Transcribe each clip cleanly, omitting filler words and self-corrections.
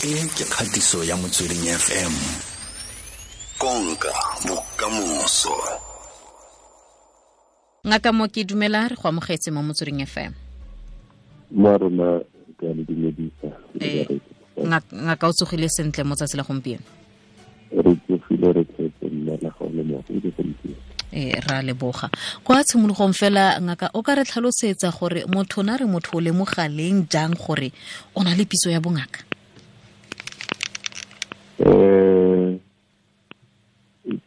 E ke kgatiso ya Motsweding FM. Konka bokamoso. Ngaka mo ke dumela re go amogetse mo Motsweding FM. Mo rona ke a le dumedisa. Ngaka o tsogile sentle mo tsatsi la gompieno? Re tsogile re tletse mme la ga le mo go gompieno. Ra leboga. Kwa tshimologong fela ngaka o ka re tlhalosetsa gore motho na re motho o lemoga leng jang gore o na le pitso ya bongaka?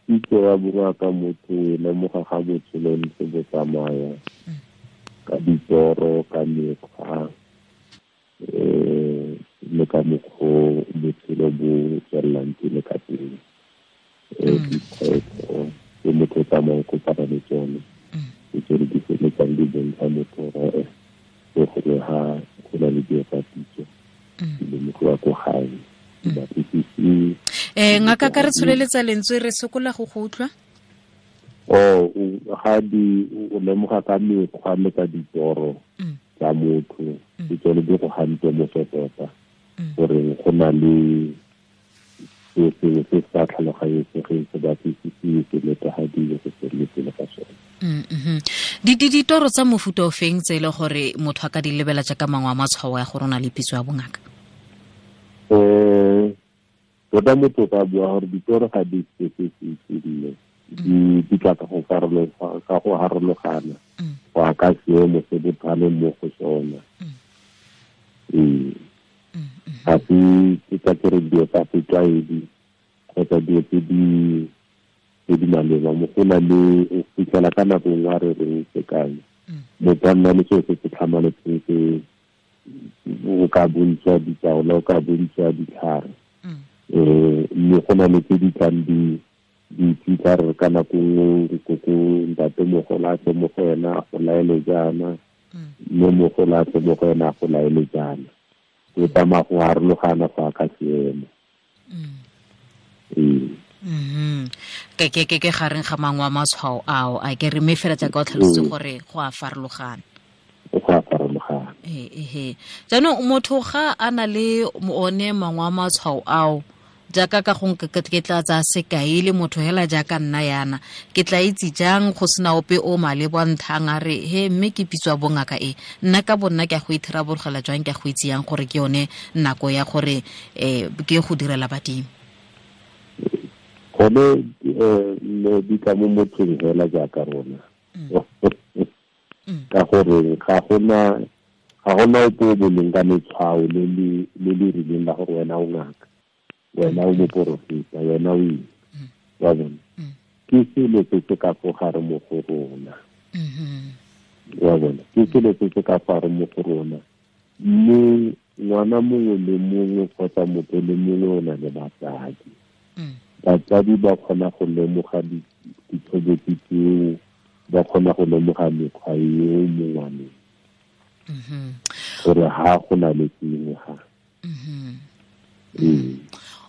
Pitso ya bongaka motho e lemoga ga botshelo ntse bo tsamaya ka ditoro, ka mekgwa, le ka mokgwa botshelo bo tswelelang pele ka teng. Dikgwetlho tse motho o tsamayang kopana le tsone, ke tsone di feleletsang di bontsha motho gore gongwe ga go na le dilo tsa pitso di lemogiwa ko gae. Ngaka ka re tsholeletsa lentswe re sokola go go utlwa. Ga di o lemoga ka mekgwa le ka ditoro tsa motho, ke tsone di go gante mo tota gore go na le se sengwe se sa tlhaloganyesegeng se batlisisiwe se netefadiwe go tswelele pele ka sone. Ditoro tsa mofuta o feng tse e le gore motho a ka di lebela jaaka mangwe a matshwao ya gore o na le pitso ya bongaka? Tota motho o ka bua gore ditoro ga di specific, di tla ka go farologana go ya ka seemo se botho mo go sona. Ga se ke ka kere dilo tsa setlwaedi kgotsa dilo tse di maleba mo go na le o fitlhela ka nako nngwe a re reng sekai motho a nna le seo se se tlhamaletseng se o ka bontsha ditaola, o ka bontsha ditlhare. Mme go na le tse di tlang di fitlha re ka nako nngwe koko ntatemogolo a tle mo go ena a go laele jaana, mme mogolo a tle mo go ena a go laele jaana. O tsamaya go harologana go ya ka seemo. Ke gareng ga mangwe a matshwao ao a ke re mme fela jaaka o tlhalositse gore go a farologana. Go a farologana. Jaanong motho ga a na le one mangwe a matshwao ao jaaka ka gongwe ke tla tsaya sekai le motho hela jaaka nna yana, ke tla itse jang go sena ope o maleba nthang a re he mme ke pitswa bongaka e, nna ka bonna ke a go itharabologela jang, ke a go itse yang gore ke yone nako ya gore ke go direla badimo? Gone ne di tla mo mothong hela jaaka rona. Ka gore ga gona ope o boleng ka letshwao le le rileng la gore wena o ngaka, wena o moporofeta, wena o eng, wa bona. Ke selo se se ka fo gare mo go rona. Wa bona, ke selo se se ka fo gare mo go rona. Mme ngwana mongwe le mongwe kgotsa motho le mongwe o na le batsadi. Batsadi ba kgona go lemoga ditshobotsi tseo, ba kgona go lemoga mekgwa eo mo ngwaneng. Gore ha go na le sengwe ga.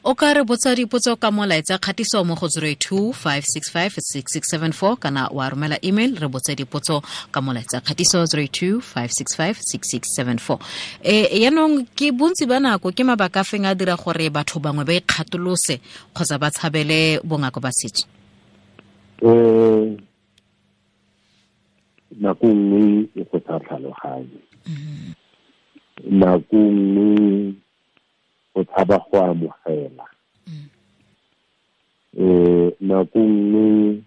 O ka re botsa dipotso ka molaetsa kgatiso mo go 082 565 6674 kana wa romela email re botse dipotso ka molaetsa kgatiso 082 565 6674. Yaanong ke bontsi ba nako ke mabaka a feng a dira gore batho bangwe ba ikgatolose kgotsa ba tshabele bongaka ba setso? Nako nngwe e go sa tlhaloganye. Nako nngwe go tshaba go amogela. Nako nngwe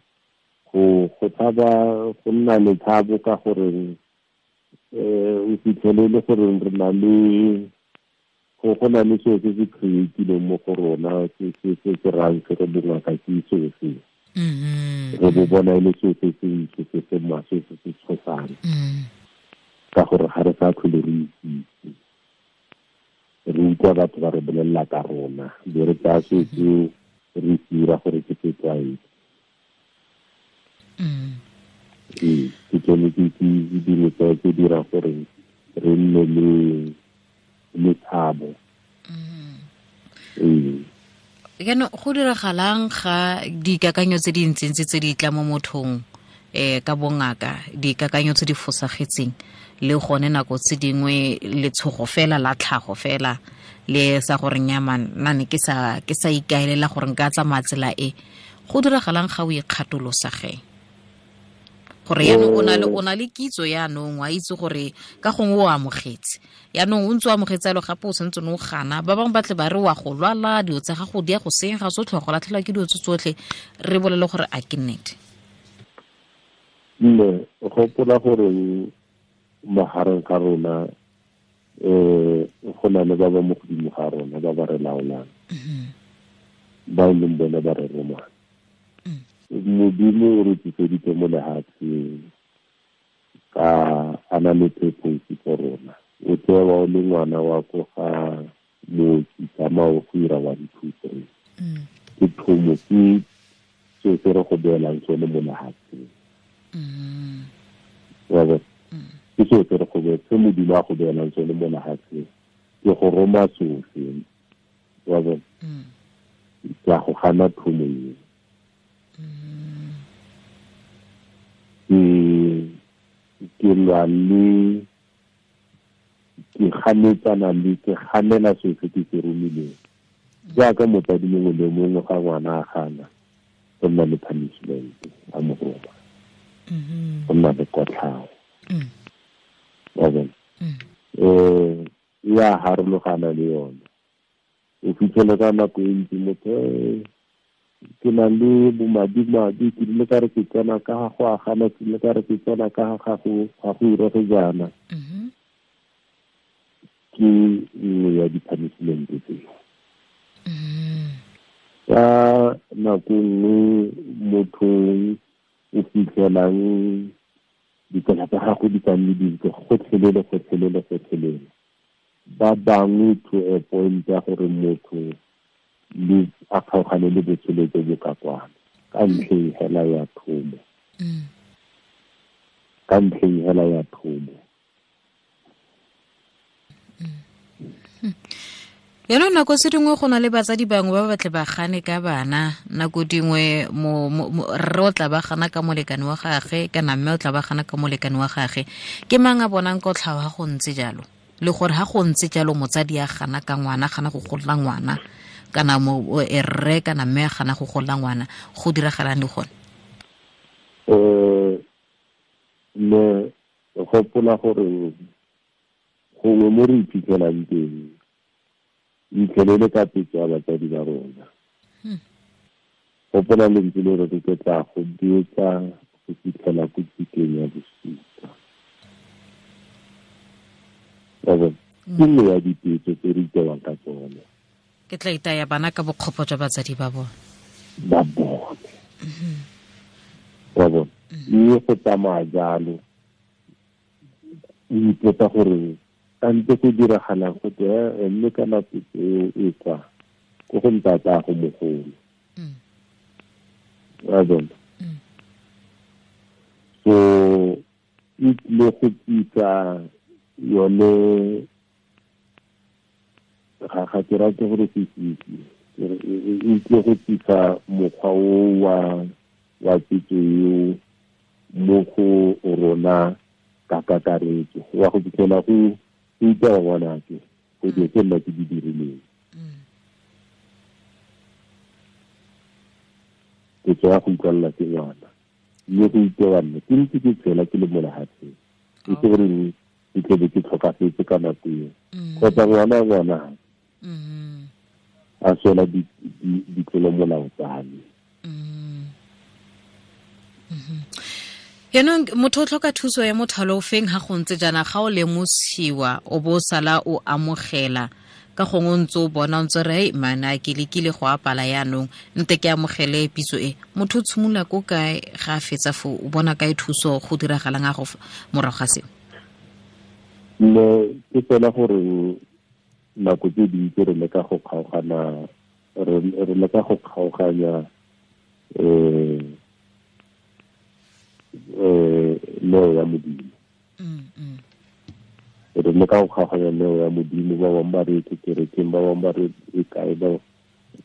go tshaba go nna le tshabo ka gore o fitlhele le gore re na le go na le seo se se creatileng mo go rona se se rang se re bongaka ke seo se. Re bo bona e le seo se se ntse se se maswe se se tshosang. Ka gore ga re sa tlhole re itse. Re utlwa batho ba re bolelela ka rona, be re tsaya seo seo re dira gore ke setlwaedi. Ke tsone ke dilo tse dira gore re nne le tshabo. Jaanong go diragalang ga dikakanyo tse di ntsintsi tse di tla mo mothong ka bongaka, dikakanyo tse di fosagetseng Le gone nako tse dingwe letshogo fela la tlhago fela le sa gore nyaman nna ne ke sa ikaelela gore nka tsamaya tsela e. Go diragalang ga o ikgatolosa ge? Gore yaanong o na le kitso yaanong, wa itse gore ka gongwe o amogetse. Yaanong o ntse o amogetse jalo gape o santse o gana. Ba bangwe ba tle ba re wa go lwala, dilo tsa gago di ya go senyega tsotlhe, wa go latlhelwa ke dilo tse tsotlhe. Re bolele gore a ke nnete? Mme gopola gore magareng ga rona go na le ba ba mo godimo ga rona ba ba re laolang, ba e leng bone ba re romang. Modimo o re tliseditse mo lefatsheng ka a na le purpose for rona. O tsewa o le ngwana wa ko ga mooki, tsamaya o go ira 1 2 3. Ke thomo, ke seo se re go beelang sone mo lefatsheng. Wa bona? Ke seo se re go se Modimo a go beelang sone mo lefatsheng, ke go roma sofe. Wa bona? Ke a go gana thomo eo. Ke lwa le ke ganetsana le ke ganela seo se ke se romileng. Jaaka motsadi mongwe le mongwe ga ngwana a gana, go nna le punishment a mo roma, go nna le kotlhao. Wa bona? E a harologana le yone. O fitlhele ka nako e ntsi motho ke na le bomadimadi, ke ile ka re ke tsena ka ga go agana, ke ile ka re ke tsena ka ga go irege jaana. Ke nngwe ya di-punishment tseo. Ka nako nngwe motho o fitlhelang ditsela tsa gago di ka nne dintle gotlhelele, gotlhelele, gotlhelele. Ba bangwe to a point ya gore motho le a kgaogane le botshelo jo bo ka kwana ka ntlheng hela ya thomo. Ka ntlheng hela ya thomo. Yaanong nako se dingwe go na le batsadi bangwe ba batle ba gane ka bana, nako dingwe rre o tla ba gana ka molekane wa gagwe kana mme o tla ba gana ka molekane wa gagwe. Ke mang a bonang kotlhao ha go ntse jalo? Le gore ha go ntse jalo motsadi a gana ka ngwana, gana go golla ngwana, kana rre kana mme a gana go golla ngwana, go diragalang le gone? Mme gopola gore gongwe mo re iphitlhelang teng itlhelele ka petso ya batsadi ba rona. Gopola lentswe le re ke tla go betsa go fitlhela ko tsikeng ya bosupa. Wa bona? Ke nngwe ya dipetso tse re itewang ka tsone. Ke tla itaya bana ka bokgopo jwa batsadi ba bone. Ba bone. Wa bona? Mme go tsamaya jalo, o ipotsa gore kante go diragalang go te mme ka nako eo e kwa ko go ntatago mogolo. Wa bona? So e tlile go tlisa yone ga ke rate gore se fitlhe, e tlile go tlisa mokgwa o wa petso eo mo go rona ka kakaretso. Wa go fitlhela go itewa ngwanake go dilo tse nna ke di dirileng. Petso ya go utlwalela ke ngwana, mme go itewa nna ke ntse ke tshela ke le mo lefatsheng, e se gore ke tlebe ke tlhokafetse ka nako eo, kgotsa ngwana a swela ditlolomolao tsa me. Yaanong motho o tlhoka thuso ya mothalo o feng ha go ntse jaana, ga o lemosiwa o bo sala o amogela ka gongwe o ntse o bona o ntse re hei mana ke lekile go apala yaanong nte ke amogele pitso e. Motho o tshimolola ko kae ga a fetsa foo, o bona kae thuso, go diragalang a go morago ga seo? Mme ke fela gore nako tse dintsi re leka go kgaogana, re leka go kgaoganya neo ya Modimo. Re leka go kgaoganya neo ya Modimo, ba bangwe ba re ke kerekeng, ba bangwe ba re e kae, ba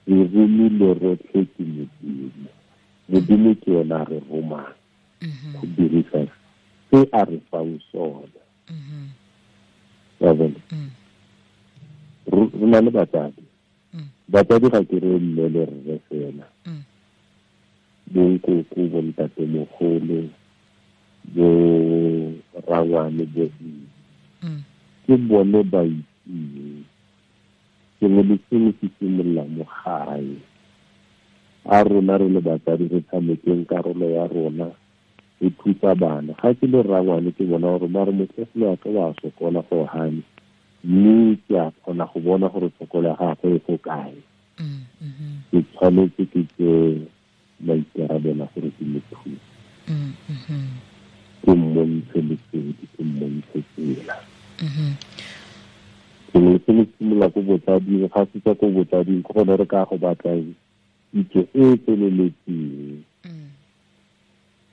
re romile rotlhe ke Modimo. Modimo ke yena a re romang go dirisa se a re fang sona. Wa bona, re na le batsadi. Batsadi ga ke re mme le rre fela, bonkoko, bontatemogolo, bo rangwane, bo ke bone ba itseng. Sengwe le sengwe se simolola mo gae. A rona re le batsadi re tshamekeng karolo ya rona, re thusa bana. Ga ke le rangwane ke bona gore mare motlogolo wa ka wa sokola go gane, mme ke a kgona go bona gore tshokolo ya gagwe e go kae. Ke tshwanetse ke tse maikarabelo gore ke mo thuse, ke mmontshe lesedi, ke mmontshe tsela. Sengwe le sengwe simolola ko botsading. Ga se tswa ko botsading, ke gone re ka go batlang kitso e e tseneletseng.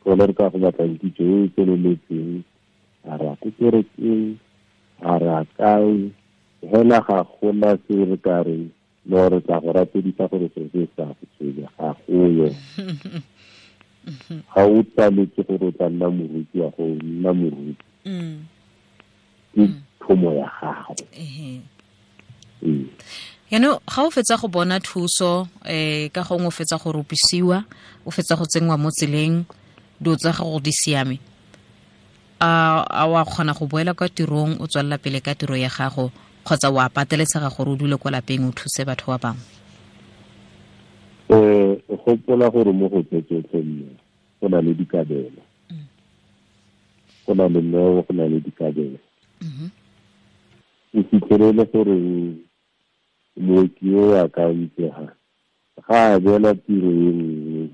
Gone re ka go batlang kitso e e tseneletseng, a re ya ko kerekeng, a re a kae, hela ga gona se re ka reng no re tla go rapedisa gore se se sa go tshwenya, ga goyo. Ga o tsaletse gore o tla nna moruti, wa go nna moruti, ke thomo ya gago. Yaanong ga o fetsa go bona thuso, ka gongwe o fetsa go rupisiwa, o fetsa go tsenngwa mo tseleng, dilo tsa gago di siame, a wa kgona go boela kwa tirong, o tswelela pele ka tiro ya gago, kgotsa wa pateletsega gore o dule kwa lapeng o thuse batho ba bangwe? Gopola gore mo go tse tsotlhe mme go na le dikabelo, go na le neo, go na le dikabelo. O fitlhelele gore mooki o a ka itsega ga a beela tiro e nngwe,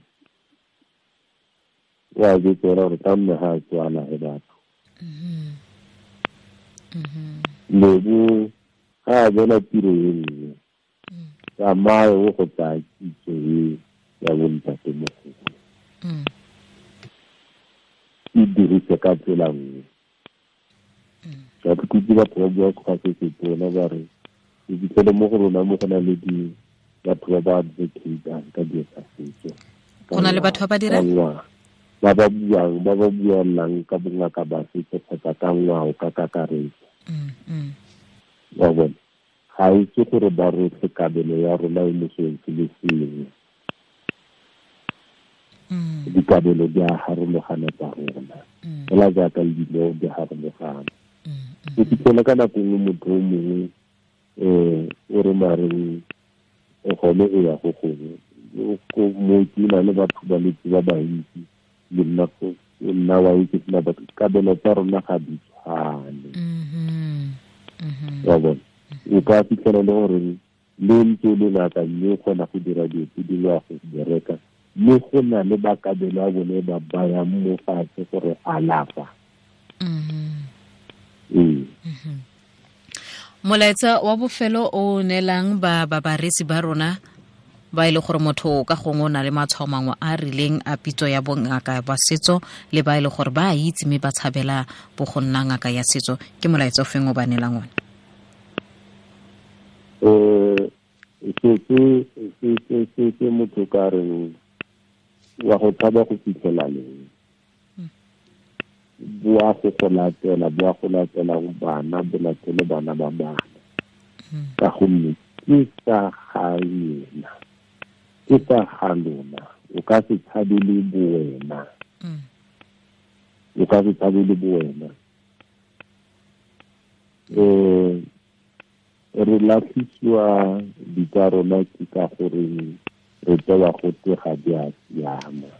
o a betsela gore ka mme ga a tswala he batho. Lebo ga a beela tiro e nngwe, tsamaye o go tsaya kitso e ya bontatemogolo, e dirise ka tsela nngwe. Ka ke kutse batho ba bua ga se setona ba re o fitlhele mo go rona mo go na le di batho ba ba advocatang ka dilo tsa setso. Go na le batho ba ba dirang? Ba ba buang, ba ba buelang ka bongaka ba setso kgotsa ka ngwao ka kakaretso. Wa bona, ga itse gore ba rotlhe kabelo ya rona e mo seng se le sengwe. Dikabelo di a harologana tsa rona, fela jaaka le dineo di harologana. O fitlhele ka nako nngwe motho o mongwe o re mareng gone e ya go gongwe, mooki o na le batho ba letse ba bantsi, le nna wa itse sena batho, kabelo tsa rona ga di tshwane. Wa bona, o ka fitlhela le gore le ntse le ngaka mme o kgona go dira dilo tse dingwe wa go bereka, mme go na le bakabelo a bone ba bayang mo fatshe gore alafa. Molaetsa wa bofelo o neelang ba bareetsi ba rona ba e le gore motho ka gongwe o na le matshwao mangwe a rileng a pitso ya bongaka ba setso, le ba e le gore ba a itse mme ba tshabela bo go nna ngaka ya setso, ke molaetsa o feng o ba neelang one? Se motho ka reng wa go tshaba go fitlhela leng, boa go go latela, boa go latela bana, bo latele bana ba bana, ka gonne ke sa ga yena, ke sa ga lona. O ka se tshabele bowena, o ka se tshabele bowena. Re latlhisiwa ditsa rona ke ka gore re tsewa go twe ga di a siama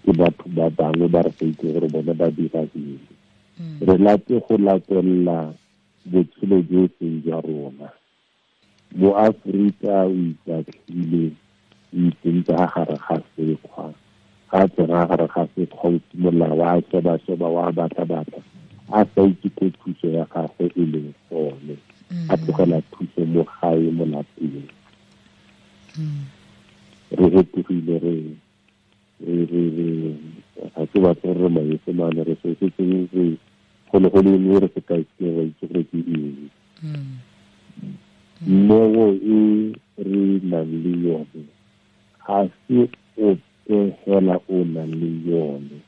ke batho ba bangwe ba re sa itse gore bone ba dira eng. Re late go latelela botshelo jo e seng jwa rona. Mo Aforika o itatlhile, o itsentse ga gare ga sekgwa, ga tsena gare ga sekgwa o simolola wa sheba-sheba, wa batla-batla, a sa itse ko thuso ya gagwe e leng gone, a tlogela thuso mo gae mo lapeng. Re fetogile, re ga ke batle gore re maesemane, re se setseng re golo-golo eng re se ka itse ra itse gore ke eng. Neo e re nang le yone ga se ope fela o nang le yone,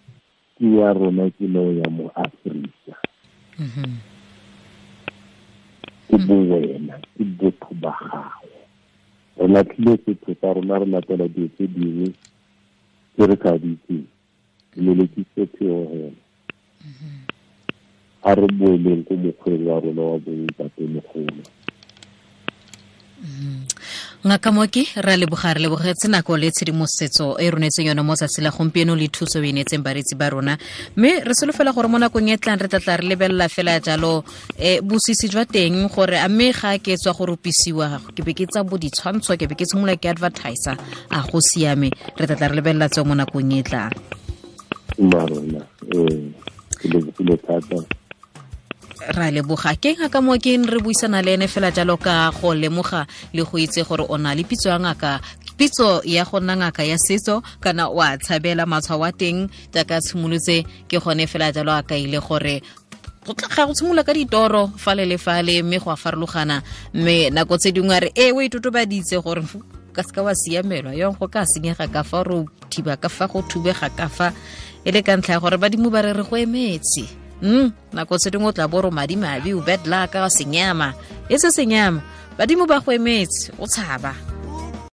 ke ya rona, ke neo ya mo Aforika. Ke bowena, ke botho ba gago. Re latlhile setho sa rona, re latela dilo tse dingwe tse re sa di itseng. Lelekise pheo hela. A re boeleng ko mokgweng wa rona wa bontatemogolo. Ngaka Mooki, re a leboga, re lebogetse nako le tshedimosetso e ronetseng yone mo tsatsi la gompieno le thuso e neetseng bareetsi ba rona, mme re solofela gore mo nakong e tlang re tla tla re lebelela fela jalo bosisi jwa teng, gore a mme ga ke tswa go rupisiwa ke be ke tsa bo ditshwantsho, ke be ke tshimolola ke advertiser, a go siame? Re tla tla re lebelela tseo mo nakong e tlang. Marona, ke lebogile thata. Ra leboga. Ke ngaka Mooki re buisana le ene fela jalo ka go lemoga le go itse gore o na le pitso ya ngaka, pitso ya go nna ngaka ya setso, kana o a tshabela matshwao a teng jaaka tshimolotse. Ke gone fela jalo a kaile gore go tla go tshimolola ka ditoro fale le fale, mme go a farologana, mme nako tse dingwe a re e o itotobaditse gore ka seka wa siamelwa yong, go ka senyega ka fa re thiba ka fa go thubega ka fa e le ka ntlha ya gore badimo ba re re go emetse. Nako tse dingwe o tla bo ro madimabe, o bad luck, senyama e se senyama, badimo ba go emetse, o tshaba.